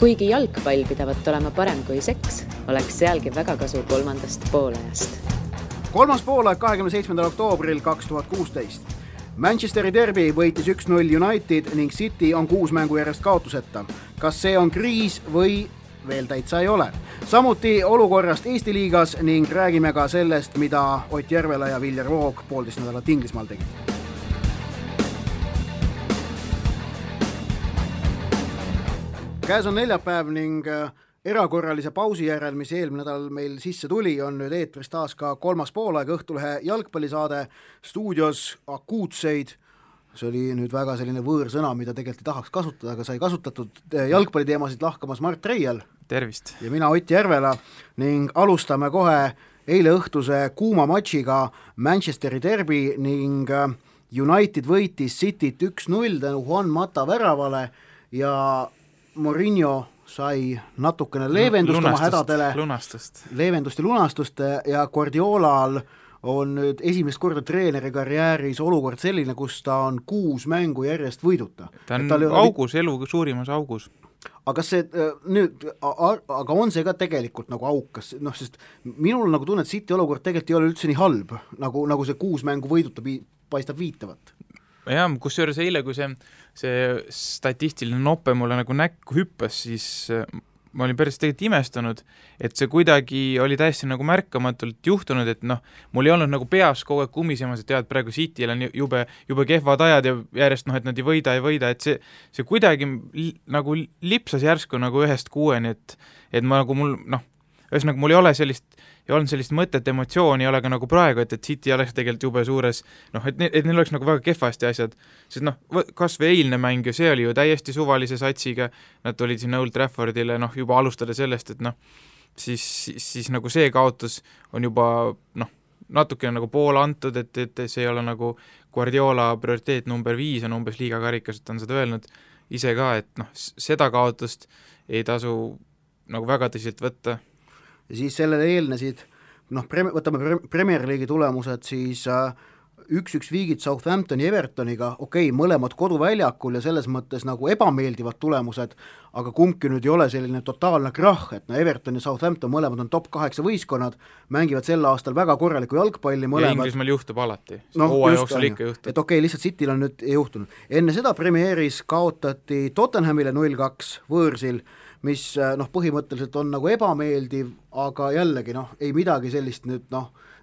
Kuigi jalgpall pidavat olema parem kui seks, oleks sealgi väga kasu kolmandast poolajast. Kolmas poolaeg 27. oktoobril 2016. Manchesteri derby võitis 1-0 United ning City on 6 mängu järjest kaotuseta. Kas see on kriis või veel täitsa ei ole? Samuti olukorrast Eesti liigas ning räägime ka sellest, mida Ott Järvela ja Viljar Voog 1,5 nädalat Inglismaal tegid. Käes on neljapäev ning erakorralise pausi järel, mis eelmine nädal meil sisse tuli, on nüüd eetris taas ka kolmas poolaeg Õhtulehe jalgpallisaade stuudios akuutseid. See oli nüüd väga selline võõrsõna, mida tegelikult ei tahaks kasutada, aga sai kasutatud jalgpalliteemasid lahkamas Mart Reial. Tervist! Ja mina Ott Järvela ning alustame kohe eile õhtuse kuuma matšiga Manchesteri derby ning United võitis Cityt 1-0 tänu Juan Mata väravale ja Mourinho sai natukene leevendust oma hädadele, leevendust ja lunastust ja Guardiolal on nüüd esimest korda treeneri karjääris olukord selline, kus ta on 6 mängu järjest võiduta. Ta on augus, elu suurimas augus. Aga see nüüd, aga on see ka tegelikult nagu aukas, sest minul nagu tunne, et City olukord tegelikult ei ole üldse nii halb, nagu see 6 mängu võiduta paistab viitavat. Ja, kusjuures eile, kui see statistiline nope mulle nagu näkku hüppas, siis ma olin päris tegelikult imestunud, et see kuidagi oli täiesti nagu märkamatult juhtunud, et mul ei olnud nagu peas kogu aeg kumisemas, et tead, praegu Cityl on jube kehvad ajad ja järjest, et nad ei võida, et see kuidagi nagu lipsas järsku nagu 1-6, et ma nagu ühesõnaga mul ei olnud sellist mõtet, emotsiooni ei ole ka nagu praegu, et City oleks tegelikult jube suures, et neil oleks nagu väga kehvasti asjad, sest kas või eilne mäng ja see oli ju täiesti suvalise satsiga, nad tulid sinna Old Traffordile, juba alustada sellest, et siis nagu see kaotus on juba natukene nagu pool antud, et see ei ole nagu Guardiola prioriteet number 5 on umbes liigakarikas, et on seda öelnud ise ka, et seda kaotust ei tasu nagu väga tõsiselt võtta. Ja siis sellele eelnesid, võtame Premier League'i tulemused, siis 1-1 viigid Southamptoni Evertoniga, mõlemad koduväljakul ja selles mõttes nagu ebameeldivad tulemused, aga kumbki nüüd ei ole selline totaalne krah, et Everton ja Southampton mõlemad on top 8 võistkonnad, mängivad sel aastal väga korralikku jalgpalli mõlemad. Ja Inglismaal juhtub alati, jooksul ikka juhtub. Et lihtsalt Cityl on nüüd juhtunud. Enne seda premieris kaotati Tottenhamile 0-2 võõrsil, mis põhimõtteliselt on nagu ebameeldiv, aga jällegi ei midagi sellist nüüd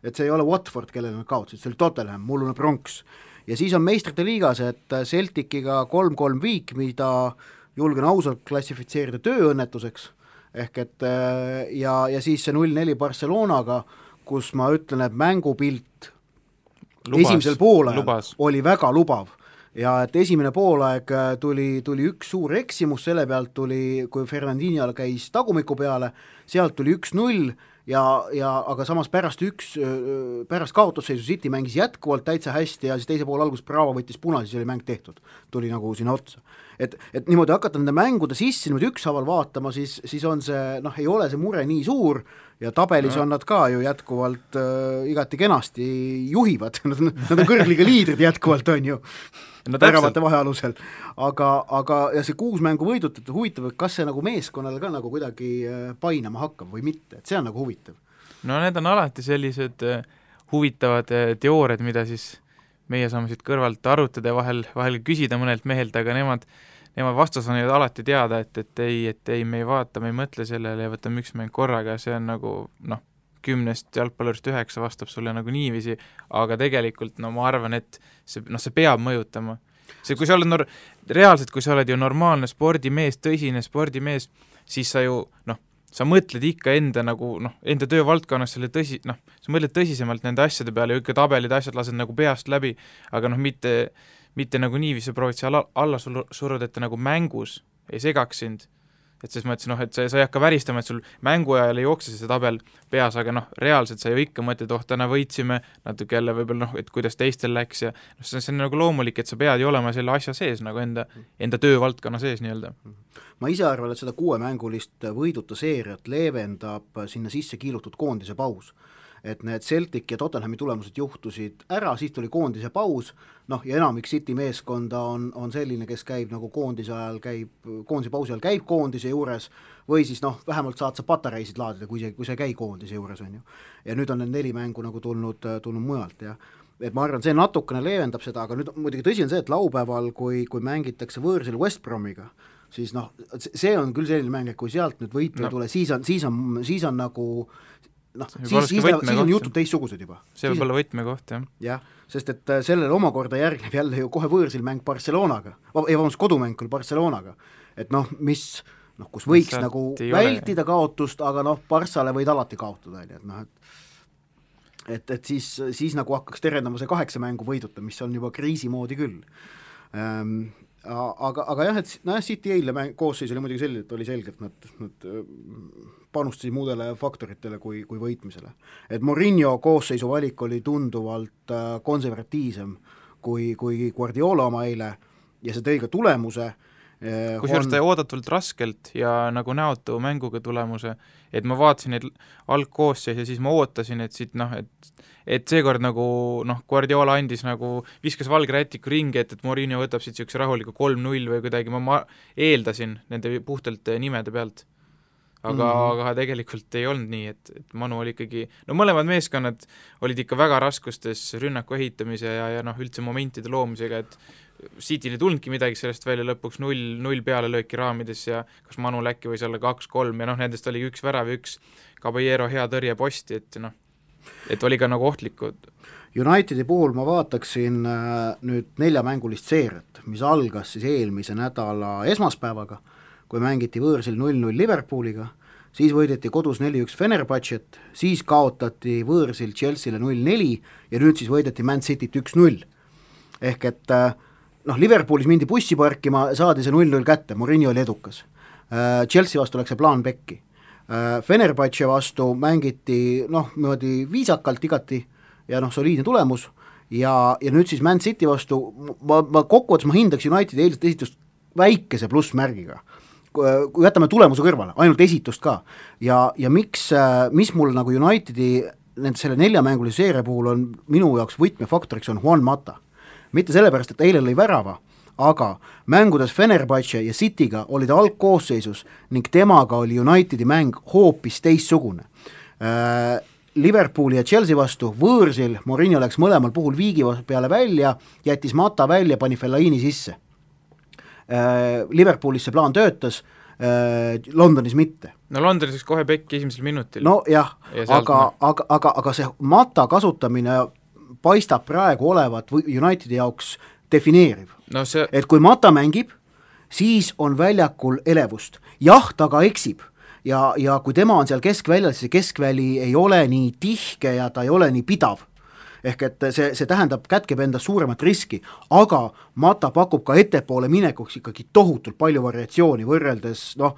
et see ei ole Watford, kellele nad kaotasid, see oli Tottenham, mullune Bronx. Ja siis on meistrite liigas, et Celticiga 3-3 viik, mida julgen ausalt klassifitseerida tööõnnetuseks, ehk et ja siis see 0-4 Barcelonaga, kus ma ütlen, et mängupilt esimesel poolajal oli väga lubav. Ja et esimene poolaeg tuli üks suur eksimus, selle pealt tuli, kui Fernandinho käis tagumiku peale, sealt tuli 1-0 aga samas pärast kaotusseisu City mängis jätkuvalt täitsa hästi ja siis teise poole algus Bravo võttis puna, siis oli mäng tehtud, tuli nagu sinna otsa. Et niimoodi hakata nende mängude sisse niimoodi ükshaaval vaatama, siis on see, ei ole see mure nii suur ja tabelis on nad ka ju jätkuvalt igati kenasti juhivad, nad on kõrgliga liidrid jätkuvalt on ju, väravate vahealusel, aga ja see 6 mängu võidut, et huvitav, et kas see nagu meeskonnale ka nagu kuidagi painama hakkab või mitte, et see on nagu huvitav. Need on alati sellised huvitavad teooriad, mida siis meie saame siit kõrvalt arutada ja vahel küsida mõnelt mehelt, aga nemad vastus on alati teada, et ei, me ei vaata, me ei mõtle sellele ja võtame üks mäng korraga, see on nagu 10 jalgpallurist 9 vastab sulle nagu niiviisi, aga tegelikult ma arvan, et see peab mõjutama. See, kui sa oled reaalselt, kui sa oled ju normaalne spordimees, tõsine spordimees, siis sa ju sa mõtled ikka enda töövaldkonnas selle sa mõtled tõsisemalt nende asjade peale ja ikka tabelid asjad lased nagu peast läbi, aga mitte nagu niiviisi proovid seal alla suruda, et nagu mängus ei segaks sind. Et siis ma ütlesin, et sa ei hakka väristama, et sul mängu ajal ei jookse see tabel peas, aga reaalselt sa ju ikka mõtled, täna võitsime, natuke jälle võib-olla, et kuidas teistel läks ja see on nagu loomulik, et sa pead ju olema selle asja sees, nagu enda töövaldkonna sees nii-öelda. Ma ise arvan, et seda 6 mängulist võiduta seeriat leevendab sinna sisse kiilutud koondise paus. et need Celtic ja Tottenhami tulemused juhtusid ära, siis tuli koondise paus, noh ja enamik City meeskonda on selline, kes käib nagu koondise pausi ajal käib koondise juures või siis noh, vähemalt saad sa patareisid laadida, kui sa ei käi koondise juures, on ju. Ja nüüd on need 4 mängu nagu tulnud mujalt ja et ma arvan, see natukene leevendab seda, aga nüüd muidugi tõsi on see, et laupäeval, kui mängitakse võõrsil West Bromiga, siis noh, see on küll selline mäng, et kui sealt nüüd võitu ei tule, siis on nagu noh, siis on jutud teistsugused juba. See võib olla võtmekoht, jah. Jah, sest et sellele omakorda järgneb jälle ju kohe võõrsil mäng Barcelonaga, kodumäng küll Barcelonaga, et noh, kus võiks nagu vältida kaotust, aga noh, Barssale võid alati kaotada, et noh, et siis nagu hakkaks terendama see 8 mängu võiduta, mis on juba kriisi moodi küll. Aga jah, et City eile koosseis oli muidugi selline, et oli selge, et nad panustasid muudele faktoritele kui võitmisele. Et Mourinho koosseisu valik oli tunduvalt konservatiivsem kui Guardiola oma eile ja see tõi ka tulemuse. Kusjuures ta oodatult raskelt ja nagu näotu mänguga tulemuse, et ma vaatasin neid algkoosseis ja siis ma ootasin, et siit noh, et seekord nagu noh, Guardiola andis nagu, viskas valge rätiku ringi, et Mourinho võtab siit siukse rahuliku 3-0 või kuidagi, ma eeldasin nende puhtalt nimede pealt. Aga tegelikult ei olnud nii, et Manu oli ikkagi, no mõlemad meeskonnad olid ikka väga raskustes rünnaku ehitamise ja noh, üldse momentide loomisega, et Cityl ei tulnudki midagi sellest välja, lõpuks 0 peale lööki raamides ja kas Manul äkki võis olla 2-3 ja noh, nendest oli 1 värav ja 1 Caballero hea tõrje posti, et noh, et oli ka nagu ohtlikud. Unitedi puhul ma vaataksin nüüd 4-mängulist seeriat, mis algas siis eelmise nädala esmaspäevaga, kui mängiti võõrsil 0-0 Liverpooliga, siis võideti kodus 4-1 Fenerbahcet, siis kaotati võõrsil Chelsea'le 0-4 ja nüüd siis võideti Man Cityt 1-0. Ehk et noh, Liverpoolis mindi bussi parkima, saadi see 0-0 kätte, Mourinho oli edukas. Chelsea vastu läks see plaan pekki. Fenerbahce vastu mängiti noh, niimoodi viisakalt igati ja noh, soliidne tulemus ja nüüd siis Man City vastu ma kokkuvõttes ma hindaks Unitedi eilset esitust väikese plussmärgiga. Kui jätame tulemuse kõrvale, ainult esitust ka ja mis mul nagu Unitedi selle 4-mängulise seeria puhul on minu jaoks võtmefaktoriks on Juan Mata. Mitte sellepärast, et eile lõi värava, aga mängudes Fenerbahce ja Cityga oli ta algkoosseisus ning temaga oli Unitedi mäng hoopis teistsugune. Liverpooli ja Chelsea vastu võõrsil Mourinho läks mõlemal puhul viigi peale välja, jättis Mata välja, pani Fellaini sisse. Liverpoolis see plaan töötas, Londonis mitte. No Londonis läks kohe pekki esimesel minutil. No jah, aga see Mata kasutamine paistab praegu olevat Unitedi jaoks defineeriv. No et kui Mata mängib, siis on väljakul elevust. Jah, ta ka eksib ja kui tema on seal keskväljal, siis keskväli ei ole nii tihke ja ta ei ole nii pidav. Ehk et see tähendab, kätkeb endas suuremat riski, aga Mata pakub ka ettepoole minekuks ikkagi tohutult palju variatsiooni võrreldes, noh,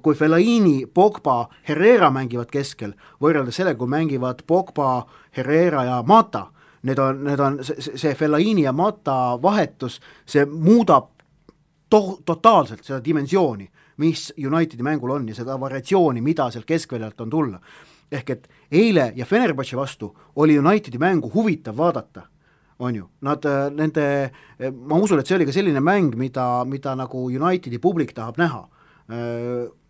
kui Fellaini, Pogba, Herrera mängivad keskel, võrreldes sellega, kui mängivad Pogba, Herrera ja Mata, need on see Fellaini ja Mata vahetus, see muudab totaalselt seda dimensiooni, mis Unitedi mängul on ja seda variatsiooni, mida sealt keskväljalt on tulla. Ehk et eile ja Fenerbahce vastu oli Unitedi mängu huvitav vaadata, on ju. Ma usun, et see oli ka selline mäng, mida nagu Unitedi publik tahab näha.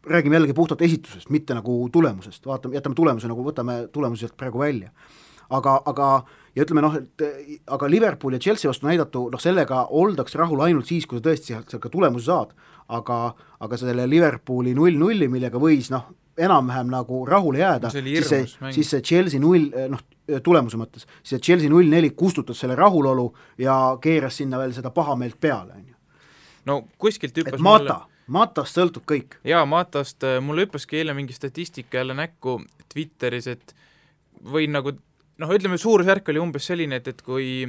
Räägime jällegi puhtalt esitusest, mitte nagu tulemusest. Jätame tulemuse, nagu võtame tulemuselt praegu välja. Aga ja ütleme aga Liverpool ja Chelsea vastu näidatu, sellega oldaks rahul ainult siis, kui sa tõesti sealt ka tulemusi saad. Aga selle Liverpooli 0-0, millega võis enam-vähem nagu rahule jääda, siis see Chelsea 0, tulemuse mõttes, siis see Chelsea 0-4 kustutas selle rahulolu ja keeras sinna veel seda pahameelt peale. No kuskilt hüppas Matast sõltub kõik. Jaa, Matast, mulle hüppaski eile mingi statistika jälle näkku Twitteris, et või nagu, ütleme, suurusjärk oli umbes selline, et kui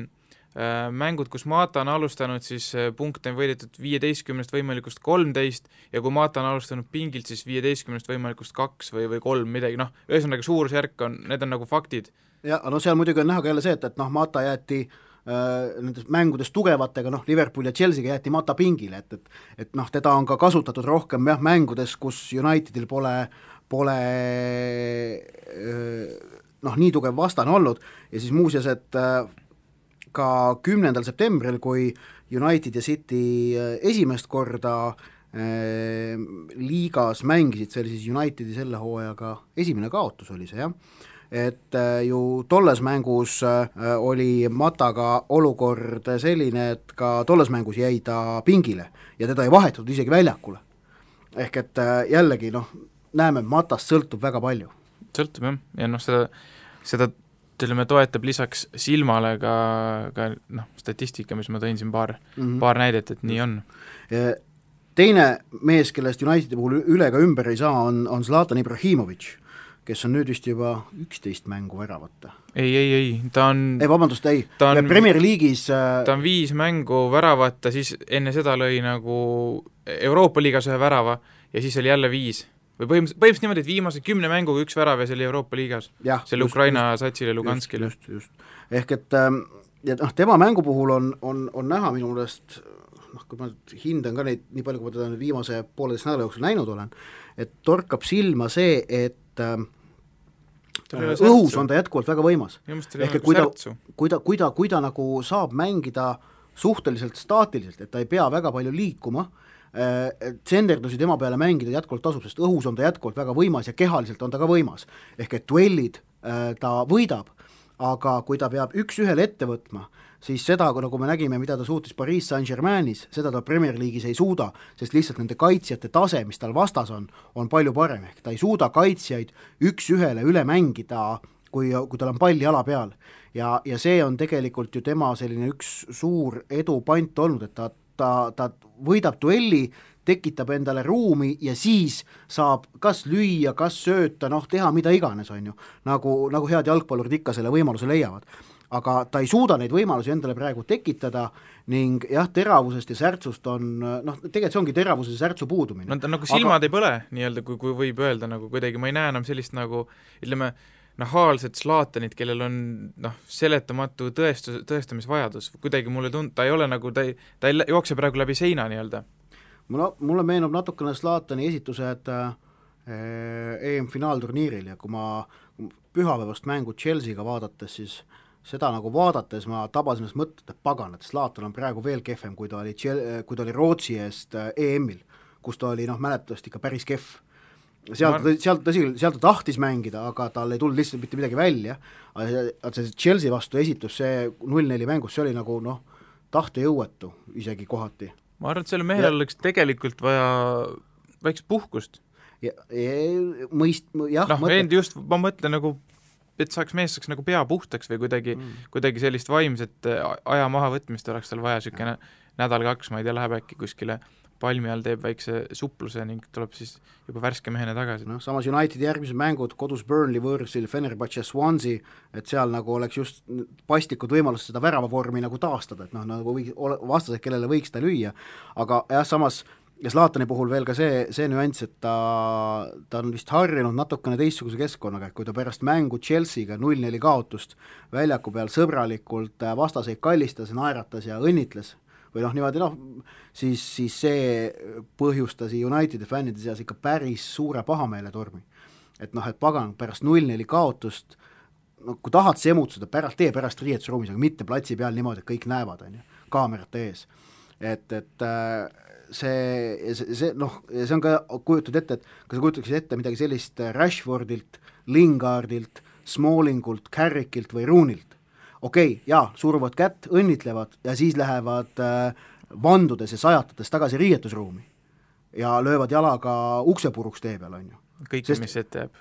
mängud, kus Mata on alustanud, siis punkte on võidetud 15 võimalikust 13 ja kui Mata on alustanud pingilt, siis 15 võimalikust 2 või 3 midagi, ühesõnaga suurusjärk on, need on nagu faktid. Ja seal muidugi on näha ka jälle see, et Mata jäeti nendes mängudes tugevatega, Liverpool ja Chelsea'ga jäeti Mata pingile, et teda on ka kasutatud rohkem mängudes, kus Unitedil pole nii tugev vastane olnud ja siis muuseas, et ka 10. septembril, kui United ja City esimest korda liigas mängisid, see oli siis Unitedi selle hooajaga esimene kaotus oli see, jah, et ju tolles mängus oli Mataga olukord selline, et ka tolles mängus jäi ta pingile ja teda ei vahetatud isegi väljakule. Ehk et jällegi näeme, Matast sõltub väga palju. Sõltub jah, ja seda ütleme, toetab lisaks silmale ka statistika, mis ma tõin siin paar näidet, et nii on. Teine mees, kellest Unitedi puhul üle ka ümber ei saa, on Zlatan Ibrahimovic, kes on nüüd vist juba 11 mängu väravata. Ei, ta on Premier League'is ta on 5 mängu väravata, siis enne seda lõi nagu Euroopa liigas ühe värava ja siis oli jälle 5. Või põhimõtteliselt niimoodi, et viimase 10 mänguga 1 värav ja see oli Euroopa liigas. Selle Ukraina satsile Luganskile. Just. Ehk et tema mängu puhul on näha minu meelest, kui ma hindan ka neid nii palju, kui ma teda viimase 1,5 nädala jooksul näinud olen, et torkab silma see, et õhus on ta jätkuvalt väga võimas. Ehk et kui ta nagu saab mängida suhteliselt staatiliselt, et ta ei pea väga palju liikuma, tsenderdusi tema peale mängida jätkuvalt tasub, sest õhus on ta jätkuvalt väga võimas ja kehaliselt on ta ka võimas. Ehk et duellid ta võidab, aga kui ta peab üks-ühele ette võtma, siis seda, nagu me nägime, mida ta suutis Paris Saint-Germainis, seda ta Premier League'is ei suuda, sest lihtsalt nende kaitsjate tase, mis tal vastas on palju parem, ehk ta ei suuda kaitsjaid üks-ühele üle mängida, kui tal on pall jala peal. Ja see on tegelikult ju tema selline üks suur edupant olnud, et ta võidab duelli, tekitab endale ruumi ja siis saab kas lüüa, kas sööta, teha mida iganes, on ju, nagu head jalgpallurid ikka selle võimaluse leiavad. Aga ta ei suuda neid võimalusi endale praegu tekitada ning jah, teravusest ja särtsust on, tegelikult see ongi teravuse ja särtsu puudumine. Ta nagu silmad ei põle, nii-öelda, kui võib öelda nagu kuidagi, ma ei näe enam sellist nagu, ütleme, nahaalset Zlatanit, kellel on seletamatu tõestamisvajadus, kuidagi mulle ta ei ole nagu, ta ei jookse praegu läbi seina nii-öelda. Mulle meenub natukene Zlatani esitused EM-finaalturniiril ja kui ma pühapäevast mängu Chelsea'ga vaadates, siis seda nagu vaadates ma tabasin ennast mõtted, et pagan, et Zlatan on praegu veel kehvem, kui ta oli Rootsi eest EM-il, kus ta oli mäletatavasti ikka päris kehv. Sealt ta tahtis mängida, aga tal ei tulnud lihtsalt mitte midagi välja. See Chelsea vastu esitus, see 0-4 mängus, see oli nagu tahtejõuetu isegi kohati. Ma arvan, et selle mehel oleks tegelikult vaja väikest puhkust. Ma mõtlen nagu, et mees saaks nagu pea puhtaks või kuidagi sellist vaimset aja maha võtmist oleks tal vaja sükene nädal-2, ma ei tea, läheb äkki kuskile palmi all, teeb väikse supluse ning tuleb siis juba värske mehena tagasi. Samas Unitedi järgmised mängud kodus Burnley võõrsil, Fenerbahce, Swansea, et seal nagu oleks just pastikud võimalust seda väravavormi nagu taastada, et nagu vastased, kellele võiks ta lüüa, aga jah, samas ja Zlatani puhul veel ka see nüanss, et ta on vist harjunud natukene teistsuguse keskkonnaga, kui ta pärast mängu Chelsea'ga 0-4 kaotust väljaku peal sõbralikult vastaseid kallistas, naeratas ja õnnitles või niimoodi, siis see põhjustas Unitedi fännide seas ikka päris suure pahameeletormi. Et pagan, pärast 0-4 kaotust, kui tahad semutsuda, pärast riietusruumis, aga mitte platsi peal niimoodi, et kõik näevad, kaamerate ees. Et see on ka kujutud ette, et kas sa kujutaksid ette midagi sellist Rashfordilt, Lingardilt, Smallingult, Carrickilt või Roonilt. Okei, suruvad kätt, õnnitlevad ja siis lähevad vandudes ja sajatades tagasi riietusruumi ja löövad jalaga uksepuruks tee peal, on ju. Kõik, mis ette jääb.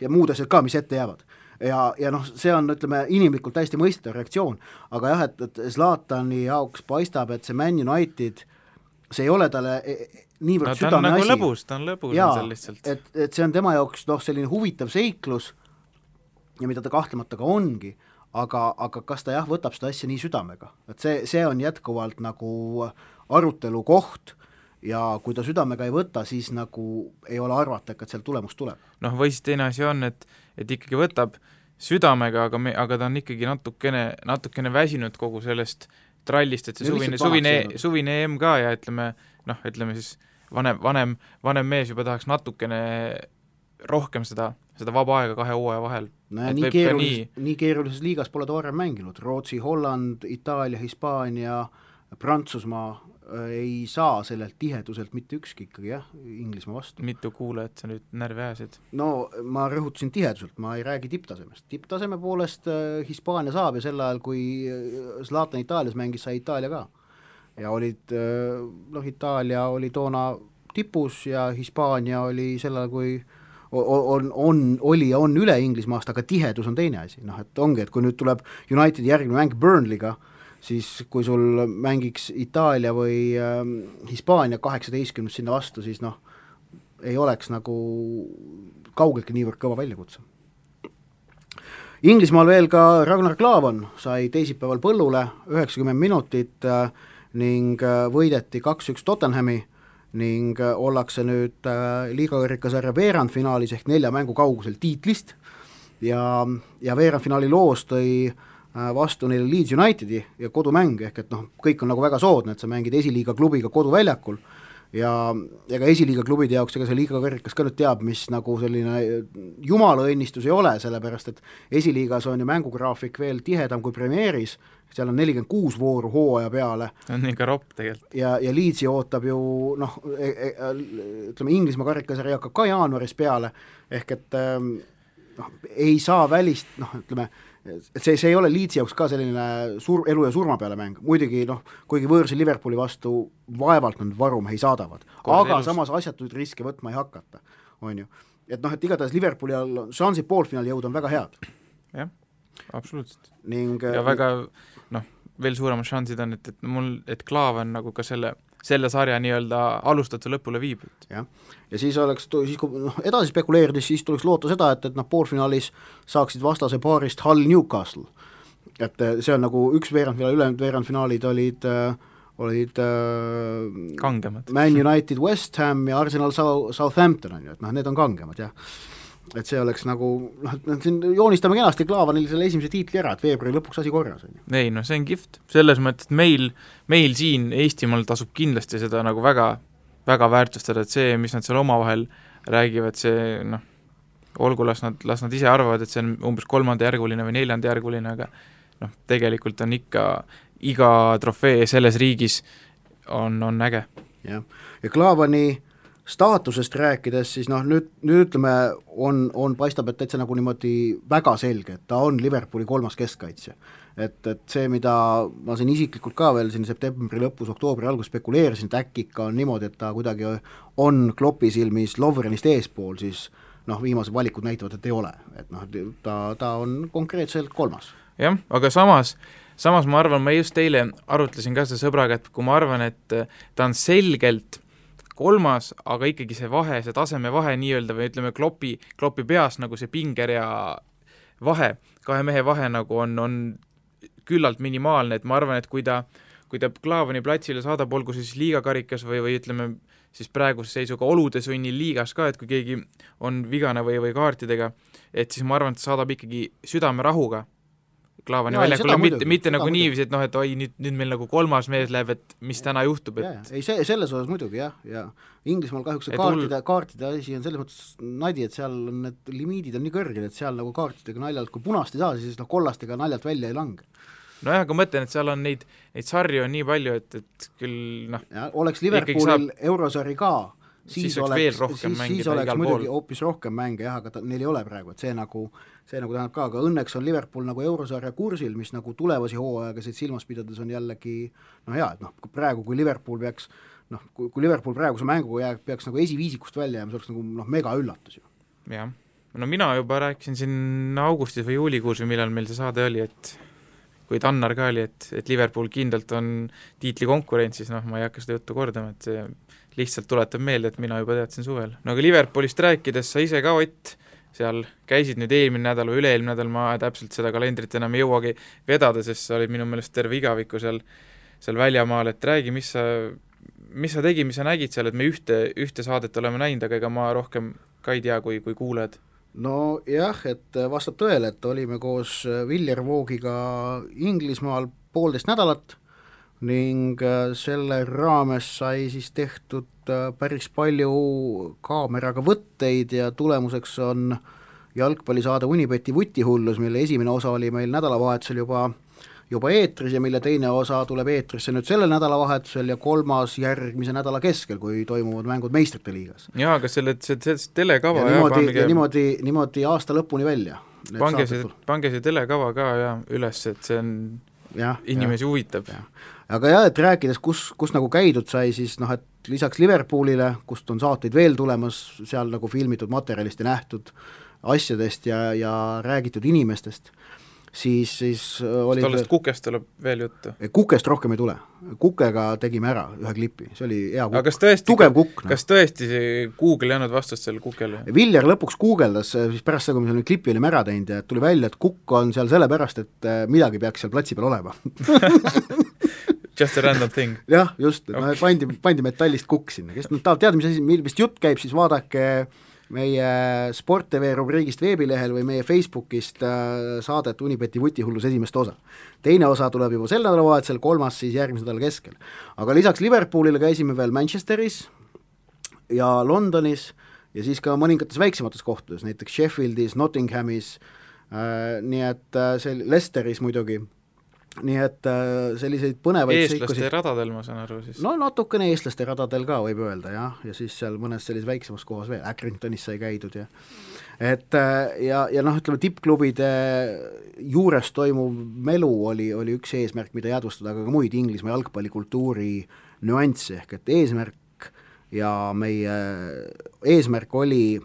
Ja muud asjad ka, mis ette jäävad. Ja see on, ütleme, inimlikult täiesti mõistetav reaktsioon, aga jah, et Zlatani jaoks paistab, et see Man United, see ei ole talle niivõrd südame asi. Ta on lõbus seal lihtsalt. Et see on tema jaoks selline huvitav seiklus ja mida ta kahtlemata ka ongi, aga kas ta võtab seda asja nii südamega, et see on jätkuvalt nagu arutelu koht ja kui ta südamega ei võta, siis nagu ei ole arvata, et seal tulemus tuleb. Või siis teine asi on, et ikkagi võtab südamega, aga ta on ikkagi natukene väsinud kogu sellest trallist, et see suvine EM ka ja ütleme siis vanem mees juba tahaks natukene rohkem seda seda vaba aega 2 hooaja vahel. No nii keerulises liigas pole ta varem mänginud, Rootsi, Holland, Itaalia, Hispaania, Prantsusmaa ei saa sellelt tiheduselt mitte ükski ikkagi jah, Inglismaa vastu. Mitu kuulajat sa nüüd närvi ajasid? No ma rõhutasin tiheduselt, ma ei räägi tipptasemest. Tipptaseme poolest Hispaania saab ja sel ajal, kui Zlatan Itaalias mängis, sai Itaalia ka. Ja olid, Itaalia oli toona tipus ja Hispaania oli sel ajal, kui oli ja on üle Inglismaast, aga tihedus on teine asi. Et ongi, et kui nüüd tuleb Unitedi järgmine mäng Burnley'ga, siis kui sul mängiks Itaalia või Hispaania 18 sinna vastu, siis ei oleks nagu kaugeltki niivõrd kõva väljakutse. Inglismaal veel ka Ragnar Klavan sai teisipäeval põllule 90 minutit ning võideti 2-1 Tottenhami ning ollakse nüüd liigakarikasarja veerandfinaalis ehk 4 mängu kaugusel tiitlist ja veerandfinaali loos tõi vastu neile Leeds Unitedi ja kodumäng, ehk et kõik on nagu väga soodne, et sa mängid esiliiga klubiga koduväljakul ja ka esiliiga klubide jaoks ega see liigakarikas ka nüüd teab, mis nagu selline jumala õnnistus ei ole, sellepärast et esiliigas on ju mängugraafik veel tihedam kui Premieris, seal on 46 vooru hooaja peale. On ikka ropp tegelikult. Ja Leedsi ootab ju, ütleme, Inglismaa karikasarja hakkab ka jaanuaris peale, ehk et ei saa välist, ütleme, et see ei ole Leedsi jaoks ka selline elu ja surma peale mäng, muidugi kuigi võõrsi Liverpooli vastu vaevalt nad varumehi saadavad, aga samas asjatuid riske võtma ei hakata, on ju. Et igatahes Liverpooli all šansid poolfinaali jõud on väga head. Jah, absoluutselt. Ja väga, veel suuremad šansid on, et Klaavan nagu ka selle sarja nii-öelda alustatuse lõpule viib. Ja siis oleks, kui edasi spekuleerides, siis tuleks loota seda, et poolfinaalis saaksid vastase paarist Hull Newcastle. Et see on nagu üks veerandfinaal, ülejäänud veerandfinaalid olid kangemad. Man United, West Ham ja Arsenal Southampton on ju, et need on kangemad, jah. Et see oleks nagu, siin joonistame kenasti Klaavanil selle esimese tiitli ära, et veebruari lõpuks asi korras on ju. Ei, see on kihvt. Selles mõttes, et meil siin Eestimaal tasub kindlasti seda nagu väga, väga väärtustada, et see, mis nad seal omavahel räägivad, see olgu, las nad ise arvavad, et see on umbes 3. järguline või 4. järguline, aga tegelikult on ikka iga trofee selles riigis on äge. Ja Klaavani staatusest rääkides, siis nüüd ütleme, on paistab, et täitsa nagu niimoodi väga selge, et ta on Liverpooli 3. keskkaitsja. Et see, mida ma siin isiklikult ka veel siin septembri lõpus, oktoobri algus spekuleerisin, et äkki ikka on niimoodi, et ta kuidagi on Kloppi silmis Lovrenist eespool, siis viimased valikud näitavad, et ei ole. Et ta on konkreetselt 3. Jah, aga samas ma arvan, ma just teile arutlesin ka selle sõbraga, et kui ma arvan, et ta on selgelt 3, aga ikkagi see vahe, see taseme vahe nii-öelda või ütleme Kloppi peas nagu see pingerea vahe, 2 mehe vahe nagu on küllalt minimaalne, et ma arvan, et kui ta Klaavani platsile saadab, olgu siis liigakarikas või ütleme siis praeguse seisuga olude sunnil liigas ka, et kui keegi on vigane või kaartidega, et siis ma arvan, et ta saadab ikkagi südame rahuga Klaavani väljakule, mitte nagu niiviisi, et oi, nüüd meil nagu 3. mees läheb, et mis täna juhtub. Ei, selles osas muidugi, jah, ja Inglismaal kahjuks kaartide asi on selles mõttes nadi, et seal on need limiidid on nii kõrged, et seal nagu kaartidega naljalt, kui punast ei saa, siis kollastega naljalt välja ei lange. Nojah, aga mõtlen, et seal on neid sarju on nii palju, et küll oleks Liverpoolil eurosari ka, siis oleks muidugi hoopis rohkem mänge, jah, aga neil ei ole praegu, et see nagu tähendab ka, aga õnneks on Liverpool nagu eurosarja kursil, mis nagu tulevasi hooaegasid silmas pidades on jällegi hea, et praegu, kui Liverpool peaks kui Liverpool praeguse mänguga peaks nagu esiviisikust välja jääma, see oleks nagu mega üllatus ju. Jah, mina juba rääkisin siin augustis või juulikuus või millal meil see saade oli, et kui Tannar ka oli, et Liverpool kindlalt on tiitli konkurentsis, ma ei hakka seda juttu kordama, et see lihtsalt tuletab meelde, et mina juba teadsin suvel. Aga Liverpoolist rääkides sa ise ka, Ott, seal käisid nüüd eelmine nädal või üle-eelmine nädal, ma täpselt seda kalendrit enam ei jõuagi vedada, sest sa olid minu meelest terve igaviku seal väljamaal, et räägi, mis sa tegi, mis sa nägid seal, et me ühte saadet oleme näinud, aga ega ma rohkem ka ei tea, kui kuuled. No jah, et vastab tõele, et olime koos Viljar Voogiga Inglismaal 1,5 nädalat ning selle raames sai siis tehtud päris palju kaameraga võtteid ja tulemuseks on jalgpallisaade Unibeti vutihullus, mille esimene osa oli meil nädalavahetusel juba eetris ja mille teine osa tuleb eetrisse nüüd sellel nädalavahetusel ja kolmas järgmise nädala keskel, kui toimuvad mängud meistrite liigas. Jaa, aga see telekava ja niimoodi aasta lõpuni välja. Pange see telekava ka ja üles, et see on inimesi huvitab. Aga jah, et rääkides, kus nagu käidud sai, siis noh, et lisaks Liverpoolile, kust on saateid veel tulemas, seal nagu filmitud materjalist ja nähtud asjadest ja räägitud inimestest, siis oli tollest Kukest tuleb veel juttu? Kukest rohkem ei tule. Kukega tegime ära ühe klipi, see oli hea kukk. Aga tugev kukk. Kas tõesti Google ei andnud vastust selle Kukele? Viljar lõpuks guugeldas, siis pärast seda, kui me selle klipi olime ära teinud ja tuli välja, et Kukk on seal sellepärast, et midagi peaks seal platsi peal olema. Just a random thing. Jah, just, pandi metallist Kukk sinna, kes tahab teada, mis jutt käib, siis vaadake meie Sport TV rubriigist veebilehel või meie Facebookist saadet Unibeti vutihullus esimest osa. Teine osa tuleb juba sel nädalavahetusel, kolmas siis järgmise nädala keskel. Aga lisaks Liverpoolile käisime veel Manchesteris ja Londonis ja siis ka mõningates väiksemates kohtades, näiteks Sheffieldis, Nottinghamis, nii et Leicesteris muidugi. Nii et selliseid põnevaid eestlaste radadel, ma saan aru siis. No natukene eestlaste radadel ka võib öelda, jah, ja siis seal mõnes sellises väiksemas kohas veel, Accringtonis sai käidud ja noh, ütleme, tippklubide juures toimuv melu oli üks eesmärk, mida jäädvustada, aga ka muid Inglismaa jalgpallikultuuri nüansse, ehk et eesmärk ja meie eesmärk oli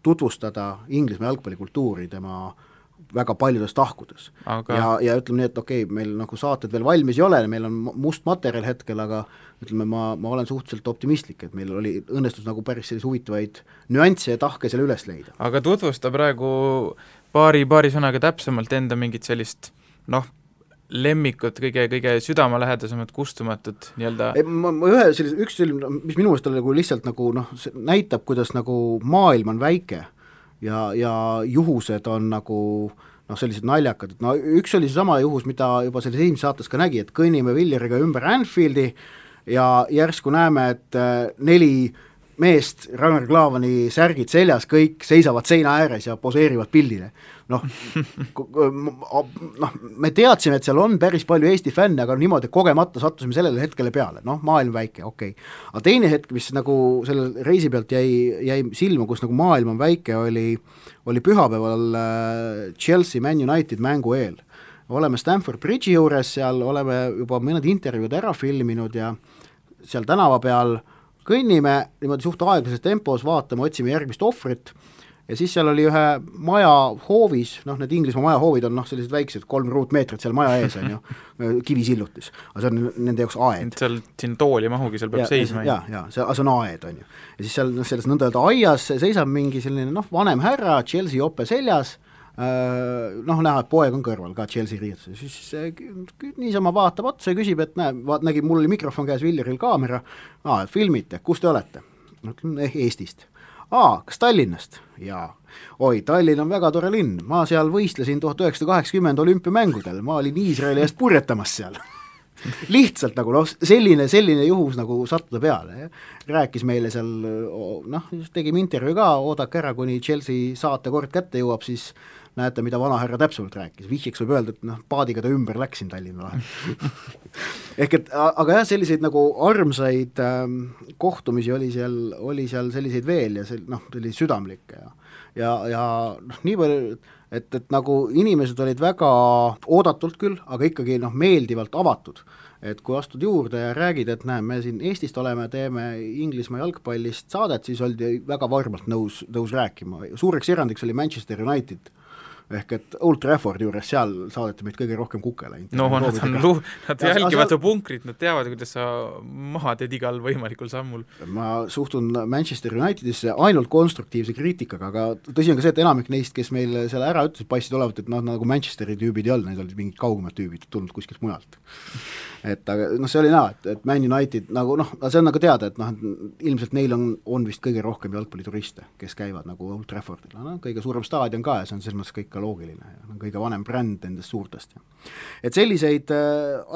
tutvustada Inglismaa jalgpallikultuuri tema väga paljudes tahkudes. Ja ütleme nii, et okei, meil nagu saated veel valmis ei ole, meil on must materjal hetkel, aga ütleme, ma olen suhteliselt optimistlik, et meil oli õnnestus nagu päris sellise huvitavaid nüansse ja tahke selle üles leida. Aga tutvusta praegu paari sõnaga täpsemalt enda mingit sellist lemmikut, kõige südamelähedasemad kustumatud nii-öelda. Üks selline, mis minu mõelest oli lihtsalt nagu näitab, kuidas nagu maailm on väike ja juhused on nagu sellised naljakad, et üks oli seesama juhus, mida juba selles esimese saates ka nägi, et kõnnime Villeriga ümber Anfieldi ja järsku näeme, et 4 meest, Ragnar Klavani särgid seljas, kõik seisavad seina ääres ja poseerivad pildile. Me teadsime, et seal on päris palju Eesti fänne, aga niimoodi kogemata sattusime sellele hetkele peale, maailm väike, okei. Aga teine hetk, mis nagu selle reisi pealt jäi silma, kus nagu maailm on väike, oli pühapäeval Chelsea Man United mängu eel. Oleme Stamford Bridge'i juures, seal oleme juba mõned intervjuud ära filminud ja seal tänava peal kõnnime, niimoodi suht aeglases tempos, vaatame, otsime järgmist ohvrit ja siis seal oli ühe maja hoovis, need Inglismaa maja hoovid on sellised väiksed, 3 ruutmeetrit seal maja ees on ju, kivisillutis, aga see on nende jaoks aed. Seal siin tooli mahugi, seal peab seisma. Ja see on aed on ju. Ja siis seal selles nõnda aias seisab mingi selline vanem härra, Chelsea jope seljas, näha, et poeg on kõrval ka Chelsea riietus, siis niisama vaatab otsa ja küsib, et nägi, mul oli mikrofon käes, Viljaril kaamera, filmite, kus te olete? Eestist. Kas Tallinnast? Jaa. Oi, Tallinn on väga tore linn, ma seal võistlesin 1980 olümpiamängudel, ma olin Iisraeli eest purjetamas seal. Lihtsalt nagu selline juhus nagu sattuda peale. Rääkis meile seal, tegime intervjuu ka, oodake ära, kuni Chelsea saatekord kätte jõuab, siis näete, mida vanahärra täpsemalt rääkis. Vihjeks võib öelda, et paadiga ta ümber läksin Tallinna vahel. Aga jah, selliseid nagu armsaid kohtumisi oli seal selliseid veel ja selliseid südamlikke ja nii palju, et nagu inimesed olid väga oodatult küll, aga ikkagi meeldivalt avatud. Et kui astud juurde ja räägid, et me siin Eestist oleme, teeme Inglismaa jalgpallist saadet, siis oldi väga varmalt nõus rääkima. Suureks erandiks oli Manchester United, ehk et Old Trafford juures, seal saadeti meid kõige rohkem kukele. Nad jälgivad su punkrit, nad teavad, kuidas sa maha teed igal võimalikul sammul. Ma suhtun Manchester Unitedisse ainult konstruktiivse kriitikaga, aga tõsi on ka see, et enamik neist, kes meil seal ära ütles, paistid olevat, et nagu Manchesteri tüübid ei olnud, need olid mingid kaugemad tüübid tulnud kuskilt mujalt. Aga see oli näha, et Man United nagu see on nagu teada, et ilmselt neil on vist kõige rohkem jalgpallituriste, kes käivad nagu Old Traffordil, kõige suurem staadion ka ja see on selles mõttes kõik ka loogiline, on kõige vanem bränd nendest suurtest. Et selliseid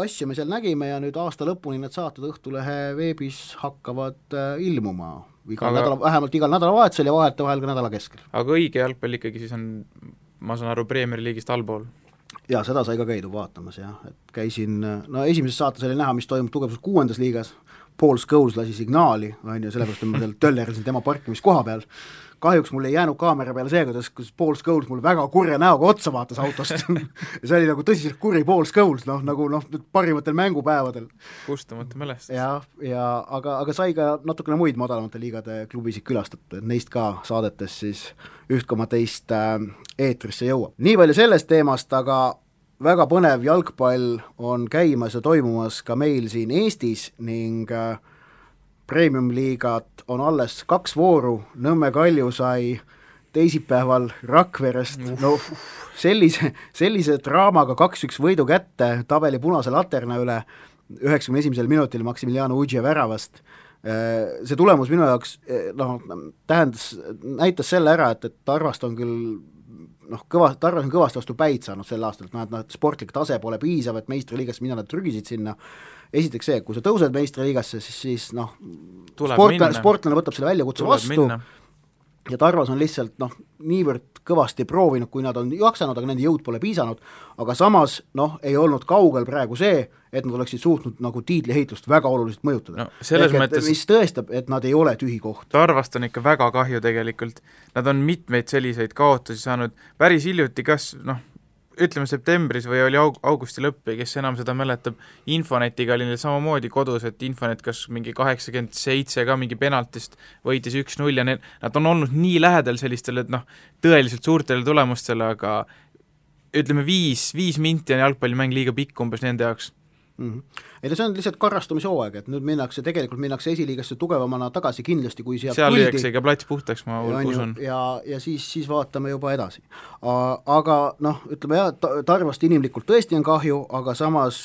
asju me seal nägime ja nüüd aasta lõpuni need saated Õhtulehe veebis hakkavad ilmuma vähemalt igal nädalavahetusel ja vahel ka nädala keskel. Aga õige jalgpall ikkagi siis on, ma saan aru, Premier League'ist allpool? Jaa, seda sai ka käidud vaatamas, jah, et käisin, esimeses saates oli näha, mis toimub tugevus 6. liigas, Paul Scholes lasi signaali, on ju, sellepärast ma seal töllerisin tema parkimiskoha peal. Kahjuks mul ei jäänud kaamera peale see, kus Paul Scholes mul väga kurja näoga otsa vaatas autost ja see oli nagu tõsiselt kuri Paul Scholes, nagu parimatel mängupäevadel. Kustamata mälestus. Aga sai ka natukene muid madalamate liigade klubisid külastatud, et neist ka saadetes siis 1,2 eetrisse jõuab. Nii palju sellest teemast, aga väga põnev jalgpall on käimas ja toimumas ka meil siin Eestis ning Premium-liigat on alles 2 vooru, Nõmme Kalju sai teisipäeval Rakverest sellise draamaga 2-1 võidu kätte tabeli punase laterna üle 91. minutil Maximiliano Udje väravast. See tulemus minu jaoks näitas selle ära, et Tarvast on küll Tarvas on kõvasti vastu päid saanud sel aastal, et sportlik tase pole piisav, et meistriliigasse mina nad trügisid sinna. Esiteks see, kui sa tõused meistriliigasse, siis sportlane võtab selle väljakutse vastu ja Tarvas on lihtsalt niivõrd kõvasti proovinud, kui nad on jaksanud, aga nende jõud pole piisanud, aga samas ei olnud kaugel praegu see, et nad oleksid suutnud nagu tiitliheitlust väga oluliselt mõjutada. Mõttes... mis tõestab, et nad ei ole tühi koht. Tarvast on ikka väga kahju tegelikult. Nad on mitmeid selliseid kaotusi saanud päris hiljuti, kas ütleme septembris või oli augusti lõpp, kes enam seda mäletab, Infonetiga oli neil samamoodi kodus, et Infonet kas mingi 87 ka mingi penaltist võitis 1-0 ja nad on olnud nii lähedal sellistele, et tõeliselt suurtele tulemustele, aga ütleme 5 minti on jalgpallimäng liiga pikk umbes nende jaoks. Ei, see on lihtsalt karrastumishoog, et nüüd minnakse esiliigasse tugevamana tagasi kindlasti, kui seal lüüakse ikka plats puhtaks, ma usun. Ja siis vaatame juba edasi. Aga ütleme Tarvast inimlikult tõesti on kahju, aga samas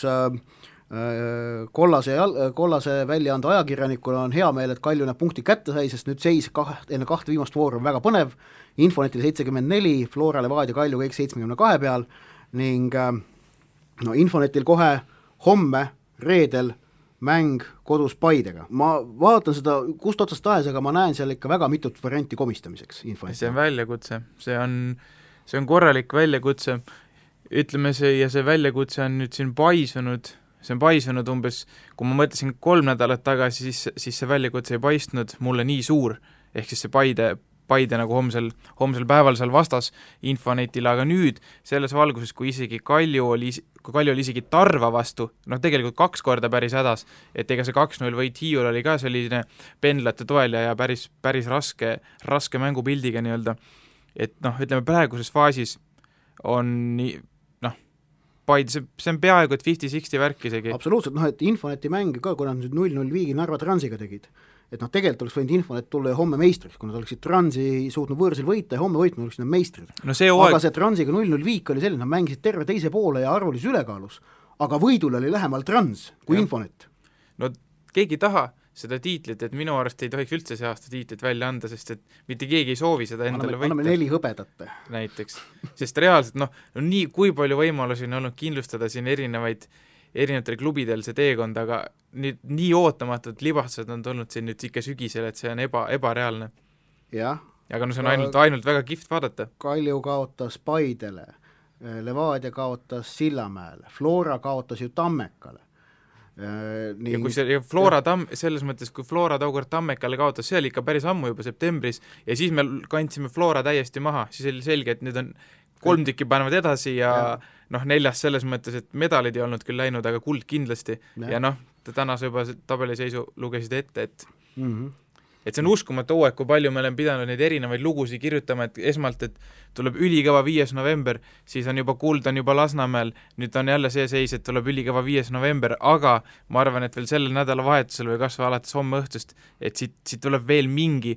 kollase väljaande ajakirjanikuna on hea meel, et Kalju need punkti kätte sai, sest nüüd seis enne 2 viimast vooru on väga põnev, Infonetil 74, Flora, Levadia, Kalju kõik 72 peal ning Infonetil kohe homme, reedel mäng kodus Paidega. Ma vaatan seda kust otsast tahes, aga ma näen seal ikka väga mitut varianti komistamiseks. See on väljakutse, see on korralik väljakutse, ütleme see väljakutse on nüüd siin paisunud umbes, kui ma mõtlesin 3 nädalat tagasi, siis see väljakutse ei paistnud mulle nii suur, ehk siis see Paide nagu homsel päeval seal vastas Infonetile, aga nüüd selles valguses, kui Kalju oli isegi Tarva vastu, tegelikult 2 korda päris hädas, et ega see 2-0 võit Hiiul oli ka selline pendlate toel ja päris raske mängupildiga nii-öelda, et ütleme praeguses faasis on Paide, see on peaaegu et 50-60 värk isegi. Absoluutselt, et Infoneti mäng ka, kui nad nüüd 0-0 viigi Narva Transiga tegid, et tegelikult oleks võinud Infonet tulla ja homme meistriks, kui nad oleksid Transi suutnud võõrsil võita ja homme võitnud oleksid nad meistrid. Aga see Transiga 0-0 viik oli selline, nad mängisid terve teise poole ja arvulis ülekaalus, aga võidul oli lähemal Trans kui Infonet. Keegi taha seda tiitlit, et minu arust ei tohiks üldse see aasta tiitlit välja anda, sest et mitte keegi ei soovi seda endale võita. Anname 4 hõbedat. Näiteks, sest reaalselt nii kui palju võimalusi on olnud kindlustada siin erinevatel klubidel see teekond, aga nii ootamatult libastused on tulnud siin nüüd ikka sügisel, et see on ebareaalne. Jah. Aga see on ainult väga kihvt vaadata. Kalju kaotas Paidele, Levadia kaotas Sillamäele, Flora kaotas ju Tammekale. Ja kui Flora selles mõttes, kui Flora tookord Tammekale kaotas, see oli ikka päris ammu juba septembris ja siis me kandsime Flora täiesti maha, siis oli selge, et nüüd on 3 tükki panevad edasi ja 4 selles mõttes, et medalid ei olnud küll läinud, aga kuld kindlasti ja tänase juba tabeliseisu lugesid ette, et see on uskumatu hooaeg, kui palju me oleme pidanud neid erinevaid lugusid kirjutama, et esmalt, et tuleb ülikõva 5. november, siis on juba kuld, on juba Lasnamäel, nüüd on jälle see seis, et tuleb ülikõva 5. november, aga ma arvan, et veel sellel nädalavahetusel või kas või alates homme õhtust, et siit tuleb veel mingi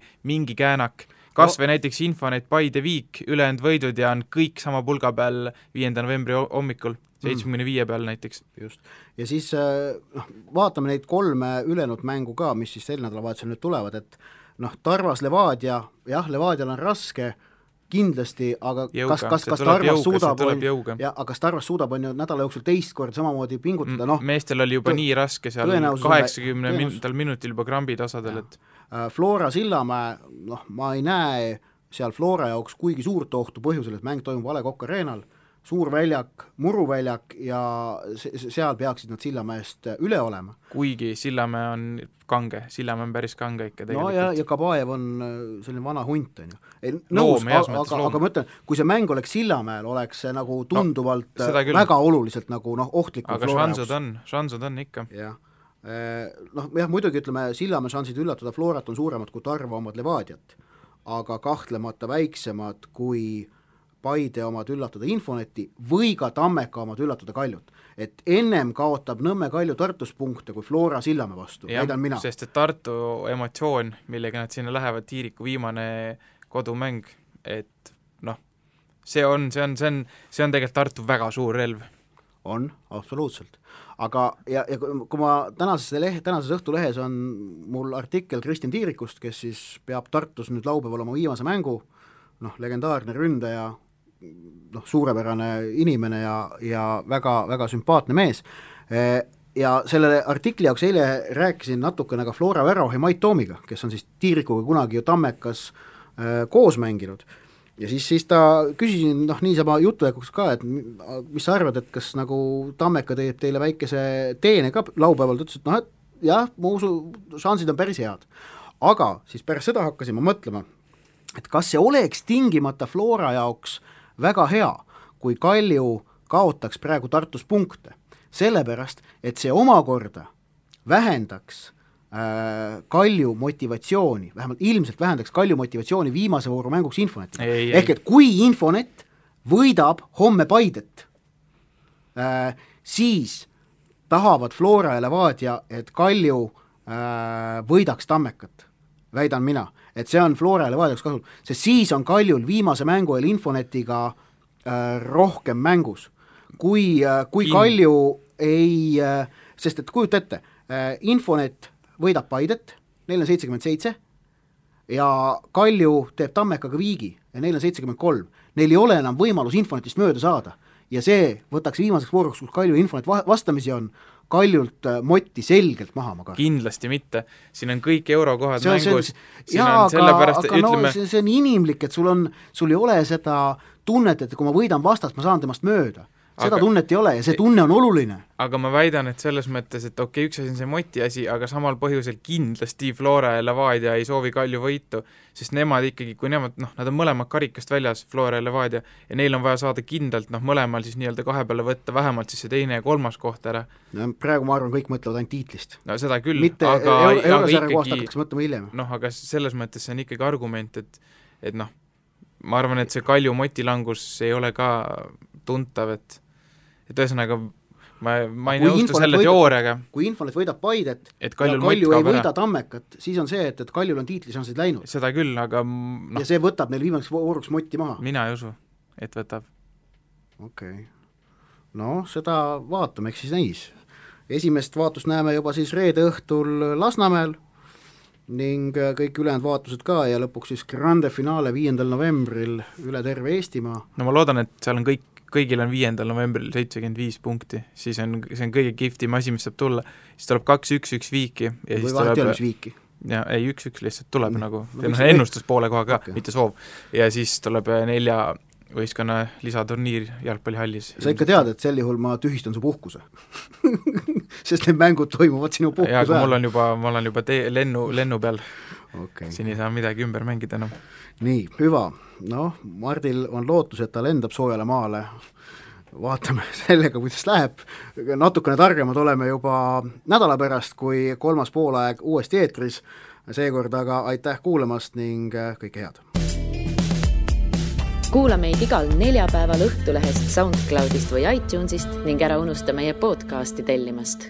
käänak. Kas või näiteks Infonet, Paide, Viik, ülejäänud võidud ja on kõik sama pulga peal 5. novembri hommikul, 75 peal näiteks. Just. Ja siis vaatame neid 3 ülejäänud mängu ka, mis siis sel nädalavahetusel nüüd tulevad, et Tarvas Levadia, jah, Levadial on raske, kindlasti, aga jõuga. kas Tarvas suudab on ju nädala jooksul teist korda samamoodi pingutada, meestel oli juba nii raske seal 80 minutil juba krambid osadel, et Flora Sillamäe, ma ei näe seal Flora jaoks kuigi suurt ohtu põhjusel, et mäng toimub A. Le Coq Arenal, suur väljak, muruväljak ja seal peaksid nad Sillamäest üle olema. Kuigi Sillamäe on kange, Sillamäe on päris kange ikka tegelikult. Ja Kabaev on selline vana hunt, on ju. Nõus, aga ma ütlen, kui see mäng oleks Sillamäel, oleks see nagu tunduvalt väga oluliselt nagu ohtlikum. Aga šansud on ikka. Jah, muidugi ütleme, Sillamäe šansid üllatada Florat on suuremad kui Tarva omad Levadiat, aga kahtlemata väiksemad kui Paide omad üllatada Infoneti või ka Tammeka omad üllatada Kaljut. Et ennem kaotab Nõmme Kalju Tartus punkte kui Flora Sillamäe vastu, väidan mina. Sest et Tartu emotsioon, millega nad sinna lähevad, Tiiriku viimane kodumäng, et see on tegelikult Tartu väga suur relv. On, absoluutselt. Aga ja kui ma tänases Õhtulehes on mul artikkel Kristjan Tiirikust, kes siis peab Tartus nüüd laupäeval oma viimase mängu, legendaarne ründaja, suurepärane inimene ja väga, väga sümpaatne mees. Ja selle artikli jaoks eile rääkisin natukene ka Flora Värohi Mait Toomiga, kes on siis Tiirikuga kunagi ju Tammekas koos mänginud. Ja siis ta küsisin niisama jutujäkuks ka, et mis sa arvad, et kas nagu Tammeka teeb teile väikese teene ka laupäeval, ta ütles, et jah, ma usu, šansid on päris head. Aga siis pärast seda hakkasin ma mõtlema, et kas see oleks tingimata Flora jaoks väga hea, kui Kalju kaotaks praegu Tartus punkte, sellepärast, et see omakorda vähendaks Kalju motivatsiooni, vähemalt ilmselt vähendaks Kalju motivatsiooni viimase vooru mänguks Infoneti. Ehk et kui Infonet võidab homme Paidet, siis tahavad Flora ja Levadia, et Kalju võidaks Tammekat, väidan mina, et see on Flora ja Levadiaks kasul, sest siis on Kaljul viimase mängu eel Infonetiga rohkem mängus. Kui Kalju ei, sest et kujuta ette, Infonet võidab Paidet, neil on 77 ja Kalju teeb Tammekaga viigi ja neil on 73. Neil ei ole enam võimalus Infonetist mööda saada ja see võtaks viimaseks vooruks, kus Kalju Infonet vastamisi on, Kaljult Motti selgelt maha ma kartan. Kindlasti mitte, siin on kõik eurokohad mängus. See on inimlik, et sul ei ole seda tunnet, et kui ma võidan vastast, ma saan temast mööda. Seda tunnet ei ole ja see tunne on oluline. Aga ma väidan, et selles mõttes, et üks asi on see Moti asi, aga samal põhjusel kindlasti Flora ja Levadia ei soovi Kalju võitu, sest nemad ikkagi, kui nemad, nad on mõlemad karikast väljas, Flora ja Levadia, ja neil on vaja saada kindlalt, mõlemal siis nii-öelda kahe peale võtta vähemalt siis see teine ja kolmas koht ära. Praegu ma arvan, kõik mõtlevad ainult tiitlist. No seda küll, mitte eurosarja kohast hakatakse mõtlema hiljem. Aga selles mõttes see on ikkagi argument, et ma arvan, et see Kalju Moti langus ei ole ka tuntav, et ühesõnaga ma ei nõustu selle teooriaga. Kui Infonet võidab Paidet ja Kalju ei võida Tammekat, siis on see, et Kaljul on tiitlišansid läinud. Seda küll, aga ja see võtab neil viimaseks vooruks Motti maha. Mina ei usu, et võtab. Okei. Seda vaatame, eks siis näis. Esimest vaatust näeme juba siis reede õhtul Lasnamäel ning kõik ülejäänud vaatused ka ja lõpuks siis grande finaale 5. novembril üle terve Eestimaa. Ma loodan, et seal on kõigil on 5. novembril 75 punkti, siis see on kõige kihvtim asi, mis saab tulla. Siis tuleb 2-1 viiki. Või vahet ei ole, mis viiki? Ja, ei, 1-1 lihtsalt tuleb ennustus poole koha ka, mitte soov. Ja siis tuleb 4 võistkonna lisaturniir jalgpallihallis. Sa ikka tead, et sel juhul ma tühistan su puhkuse? Sest need mängud toimuvad sinu puhkuse ajal. Ja, aga ma olen juba lennu peal. Siin ei saa midagi ümber mängida enam. Nii, hüva. Mardil on lootus, et ta lendab soojale maale. Vaatame sellega, kuidas läheb. Natukene targemad oleme juba nädala pärast, kui kolmas poolaeg uuesti eetris. Seekord aga aitäh kuulamast ning kõike head. Kuula meid igal neljapäeval Õhtulehest, SoundCloudist või iTunesist ning ära unusta meie podcasti tellimast.